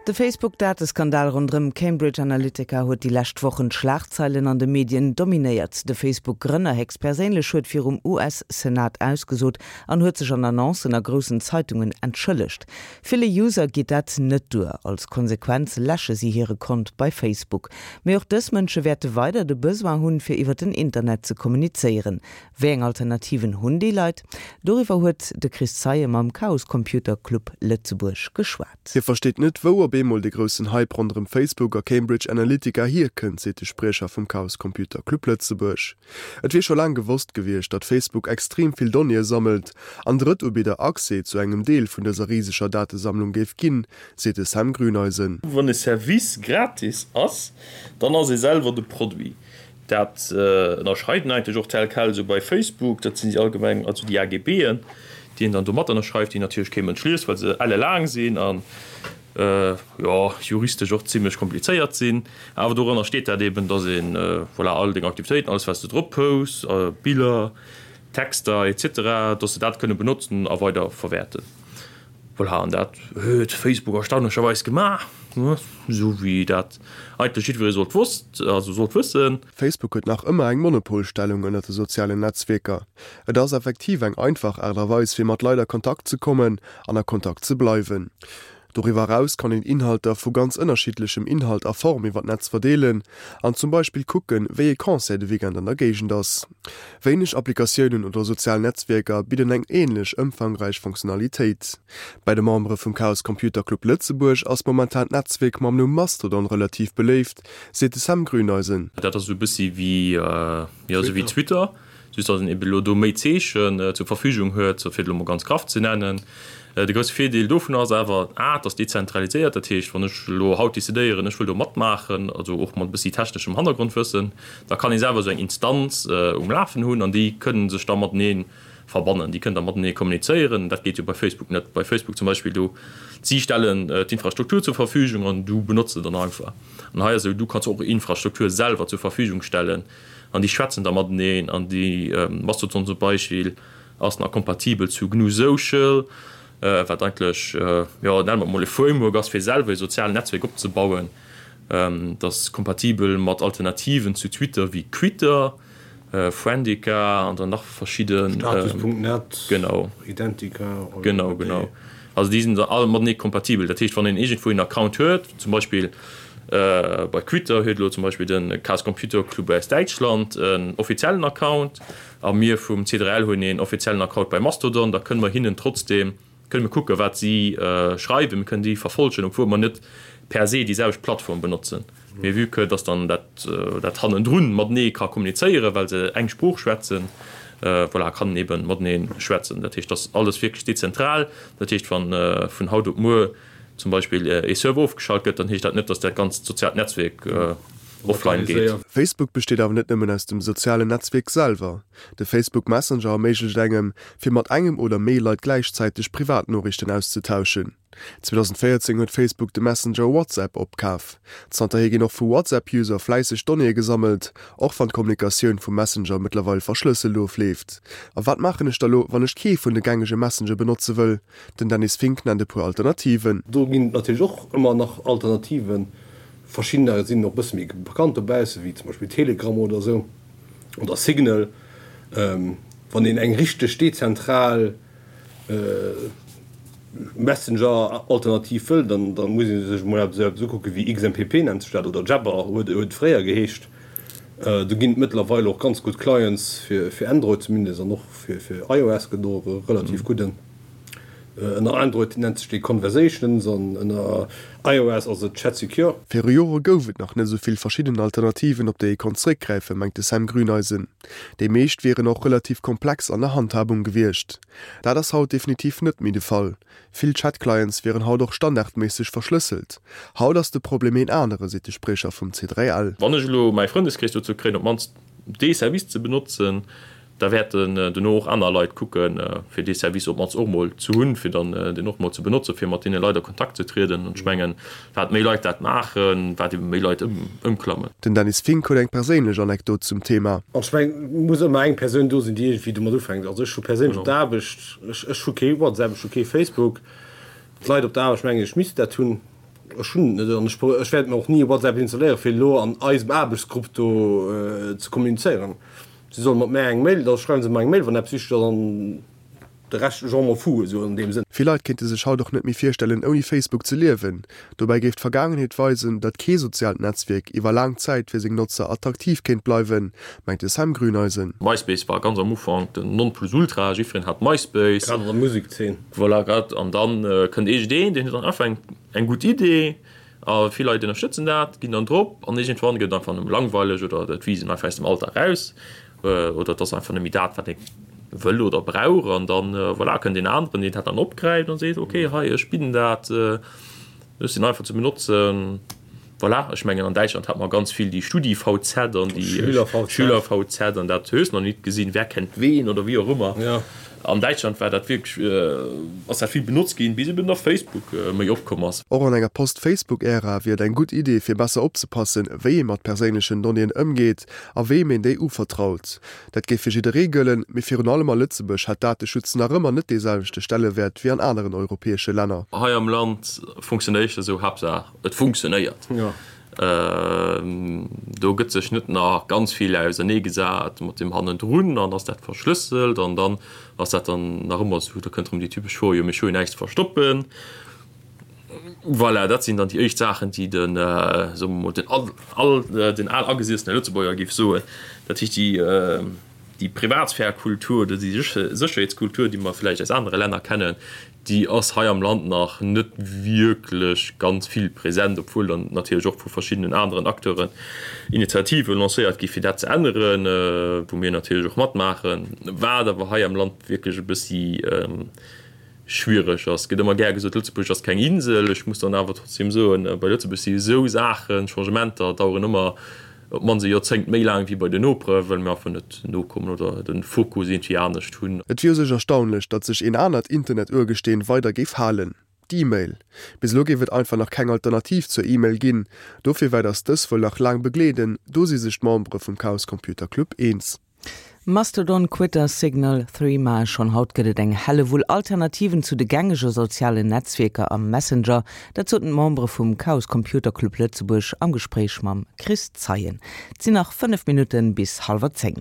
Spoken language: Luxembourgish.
De Facebook-Dateskandal ronderëm Cambridge Analytica huet déi lescht Wochen d'Schlagzeilen an de Medien dominéiert. De Facebook-Grënner héchstperséinlech huet virum US-Senat ausgesot an huet sech an Annoncen a groussen Zeitungen entschëllegt. Ville User geet dat net duer. Als Konsequenz läsche si hire Kont bei Facebook. Mee och dës Mënsche wäerte weider de Besoin hunn, fir iwwer den Internet ze kommunizéieren. Wéi eng Alternativen hunn déi Leit? Doriwwer huet de Chris Zeie mam Chaos Computer Club Lëtzebuerg geschwat. Hie versteet net, wou op eemol de groussen Hype ronderëm Facebook a Cambridge Analytica hierkënnt, seet de Spriecher vum Chaos Computer Club Lëtzebuerg. Et wier scho laang gewosst gewiescht, datt Facebook extrem vill Donnéeë sammelt an Drëttubidder Accès zu engem Deel vun dëser riseger Datesammlung géif ginn, seet de Sam Grüneisen. Wann e Service gratis ass, dann ass ee selwer de Produit. Dat ënnerschreiwen eigentlech och tel quel esou bei Facebook. Dat sinn déi allgemeng, also déi AGBen, déi een dann do mat ënnerschreift, déi natierlech kee Mënsch liest, well se ellelaang sinn an, jo, juristesch och zimlech komplizéiert sinn. Awer dorënner steet dat eben, dass een, voilà, all deng Aktivitéiten, alles wat s de drop posts, Biller, Texter et cetera, dass se dat kënne benotzen a weider verwäerten. Voilà, an dat huet Facebook erstaunlecherweis gemaach, esou wéi dat eigentlech jiddweree sollt wosst, also sollt wëssen. Facebook huet nach ëmmer eng Monopolstellung ënnert de sozialen Netzwierker. Et ass effektiv eng einfach Aart a Weis fir mat Leit a Kontakt ze kommen an a Kontakt ze bleiwen. Doriwwer eraus kann een Inhalter vu ganz ënnerschiddlechem Inhalt a Form iwwer d'Netz verdeelen an zum Beispill kucken, wéi ee Concert de Weekend an der Géigend ass. Wéineg Applikatiounen oder sozial Netzwierker bidden eng änlech ëmfangräich Funktionalitéit. Bei de Membere vum Chaos Computer Club Lëtzebuerg ass momentan d'Netzwierk mam Numm Mastodon relativ beléift, seet de Sam Grüneisen. Dat ass esou e bëssi wéi, jo, esou wéi Twitter. Just datt een eben elo do méi Zeechen zur Verfügung huet, fir et elo mol ganz graff ze nennen. De grousse Virdeel dovun ass awer, a, et ass dezentraliséiert, dat heescht, wann ech elo haut decidéieren, ech wëll do matmaachen, also och mat e bëssi techneschem Hannergrondwëssen, da kann ee selwer esou eng Instanz um Lafen hunn an déi kënnen sech da matenee verbannen, déi kënnen da matenee kommunizéieren. Dat geet jo bei Facebook net. Bei Facebook zum Beispill, do, si stellen d'Infrastruktur zur Verfügung an du benotz se dann einfach. An hei ass esou, du kanns och Infrastruktur selwer zur Verfügung stellen. An déi schwätzen da mateneen an déi Mastodon zum Beispill ass nach kompatibel zu GNU Social, wat eigentlech, jo, nenne mer et mol e Framework ass fir selwer e sozialen Netzwerk opzebauen. Dat ass kompatibel mat Alternativen zu Twitter wéi Quitter, Friendica an dann nach verschidden. Status.net, genau. Identica. Genau, genau. Also déi sinn da all matenee kompatibel. Dat heescht, wann een iergendwou een Account huet, zum Beispill bei Twitter huet elo zum Beispill de Chaos Computer Club aus Däitschland en offiziellen Account a mir vum C3L hunn een offiziellen Account bei Mastodon, da kënne mer hinnen trotzdeem, kënne mir kucken, wat si schreiwen, mir kënnen déi verfollegen, obwuel mer net per se déi selwecht Plattform benotzen. Mee vue que dass dann dat dat hannendrun matenee ka kommunizéieren, well se eng Sprooch schwätzen, voilà, kann en eeben matenee schwätzen. Dat heescht, dass alles wierklech dezentral. Dat heescht, wann vun haut op muer zum Beispill ee Server ofgeschalt gëtt, dann heescht dat net, dass dat ganzt soziaalt Netzwierk offline geet. Facebook besteet awer net nëmmen aus dem sozialen Netzwierk selwer. De Facebook Messenger erméiglecht engem, fir mat engem oder méi Leit gläichzäiteg Privatnoriichten auszetauschen. 2014 huet Facebook de Messenger WhatsApp opkaf. Zanterhier ginn och vu WhatsApp-User fläisseg Donnéeë gesammelt, och wann d'Kommunikatioun vum Messenger mëttlerweil verschlësselt ofleeft. A wat maachen ech da lo, wann ech kee vun de gängege Messenger benotze wëll? Den Dennis Fink nennt e puer Alternativen. Do ginn et natierlech och ëmmer nach Alternativen. Verschiddener sinn och e bësse méi bekannt dobausse wéi zum Beispill Telegram oder esou oder Signal. Wann een eng richteg dezentral Messenger-Alternativ wëll, dann da muss ee sech emol eppes eppes ukucke wéi XMPP nennt sech dat oder Jabber huet et fréier geheescht. Do ginn et mëttlerweil och ganz gutt Clients fir fir Android zumindest an och fir fir iOS gëtt och e relativ gudden. Ënner Android nennt sech dee Conversations an ënner iOS ass et ChatSecure. Viru Jore gouf et nach net esou vill verschidden Alternativen, op déi ee konnt zeréckgräifen, mengt de Sam Grüneisen. Déi meescht wieren och relativ komplex an der Handhabung gewiescht. Dat ass haut definitiv net méi de Fall. Vill Chat-Clients wieren haut och standardméisseg verschlësselt. Haut ass de Problem een anere, seet de Spriecher vum C3L. Wann ech elo mäi Frëndeskrees dozou kréien, op d'mannst dee Service ze benotzen, da wäerten dono och aner Leit kucken, fir dee Service op d'mannst och mol ze hunn, fir dann deen och mol ze benotzen, fir mat deene Leit a Kontakt ze trieden. An ech mengen, wat méi Leit dat maachen, wat ebe méi Leit ëmklammen. Den Dennis Fink huet eng perséinlech Anekdot zum Thema. An ech mengen, et muss ëmmer eng Persoun do sinn, déi iergendwéi domat ufänkt. Also ech hu perséinlech op der Aarbecht, ech hu kee WhatsApp, ech hu kee Facebook. D'Leit op der Aarbecht mengen, ech misst dat hunn. Ech hunn et net an ech wäert mir och ni WhatsApp installéieren, fir elo an eisem Aarbechtsgrupp do ze kommunizéieren. Si solle mat mär eng Mail, da schreiwe se mer eng Mail, wann eppes wichteg ass an de Rescht, je m'en fous, esou an deem Sënn. Vill Leit kéinte sech haut och net méi virstellen, ouni Facebook ze liewen. Dobäi géif d'Vergaangenheet weisen, datt kee soziaalt Netzwierk iwwer laang Zäit fir seng Notzer attraktiv kéint bleiwen, mengt de Sam Grüneisen. MySpace war ganz am Ufank den Nonplusultra, jiddwereen hat MySpace. Grad an der Musekzeen. Voilà, grad. An dann kënnt iergendeen, deen huet dann einfach eng eng gutt Idee a vill Leit ënnerstëtzen dat, ginn dann drop an iergendwann gëtt et einfach nëmme langweileg oder et wiisst een einfach aus dem Alldag raus oder et ass einfach net méi dat, wat ee wëll oder brauch an dann, voilà, kënnt een aneren, deen dat dann opgräift an seet, okay, hei, ech bidden dat, ech sinn einfach ze benotzen. Voilà, ech mengen an Däitschland hat mer ganz vill déi StudiVZ an déi SchülerVZ an dat hues nach nit gesinn, wer kennt wen oder wéi och ëmmer. An Däitschland war dat wierklech, ass dat vill benotzt ginn, bis eben da Facebook méi opkomm ass. Och an enger Post-Facebook-Ära wier et eng gutt Idee fir besser opzepassen, wéi ee mat perséinlechen Donnéeën ëmgeet a weem een déi uvertraut. Dat géif fir jidderee gëllen, mee virun allem a Lëtzebuerg hätt Dateschutz nach ëmmer net dee selwechte Stellewäert wéi an aneren europäesche Länner. Hei am Land funktionéiert esou Haaptsaach et funktionéiert. Do gëtt sech net nach ganz vill ausernee gesat mat deem hannendrun an ass dat verschlësselt an dann ass dat dann nach ëmmer esou, da kënnt erëm déi typesch Fro, jo mee ech hu jo näischt ze verstoppen. Voilà, dat sinn dann déi éischt Saachen, déi den, soe mer mol, den al, den al agesiessene Lëtzebuerger géif soen. Dat heescht déi, déi Privatsphär-Kultur oder déi Sécherheetskultur, déi mer vläicht aus anere Länner kennen, déi ass hei am Land nach net wierklech ganz vill present, obwuel dann natierlech och vu verschiddenen aneren Acteuren Initiative lancéiert gi fir dat ze änneren, wou mir natierlech och matmaachen, wat awer hei am Land wierklech e bëssi schwiereg ass. Et gëtt ëmmer gär gesot, Lëtzebuerg ass keng Insel. Ech muss dann awer trotzdem soen, bei Lëtzebuerg si esou Saachen, Changementer daueren ëmmer Op d'mannst e Joerzéngt méi laang wéi bei den Nopere, well mir einfach net nokommen oder de Fokus iergendwéi anescht hunn. Et wier u sech erstaunlech, datt sech een anert Internet-Urgesteen weider géif halen, d'E-Mail. Bis elo géif et einfach nach keng Alternativ zur E-Mail ginn. Dofir wäert ass dës wuel nach laang begleeden, do si sech d'Membere vum Chaos Computer Club eens. Mastodon, Quitter, Signal, Threema, schonn haut gëtt et eng Hellewull Alternativen zu de gängege sozialen Netzwierker a Messenger. Dat soten d'Membere vum Chaos Computer Club Lëtzebuerg am Gespréich mam Chris Zeien. Et sinn nach 5 Minutte bis hallwer 10.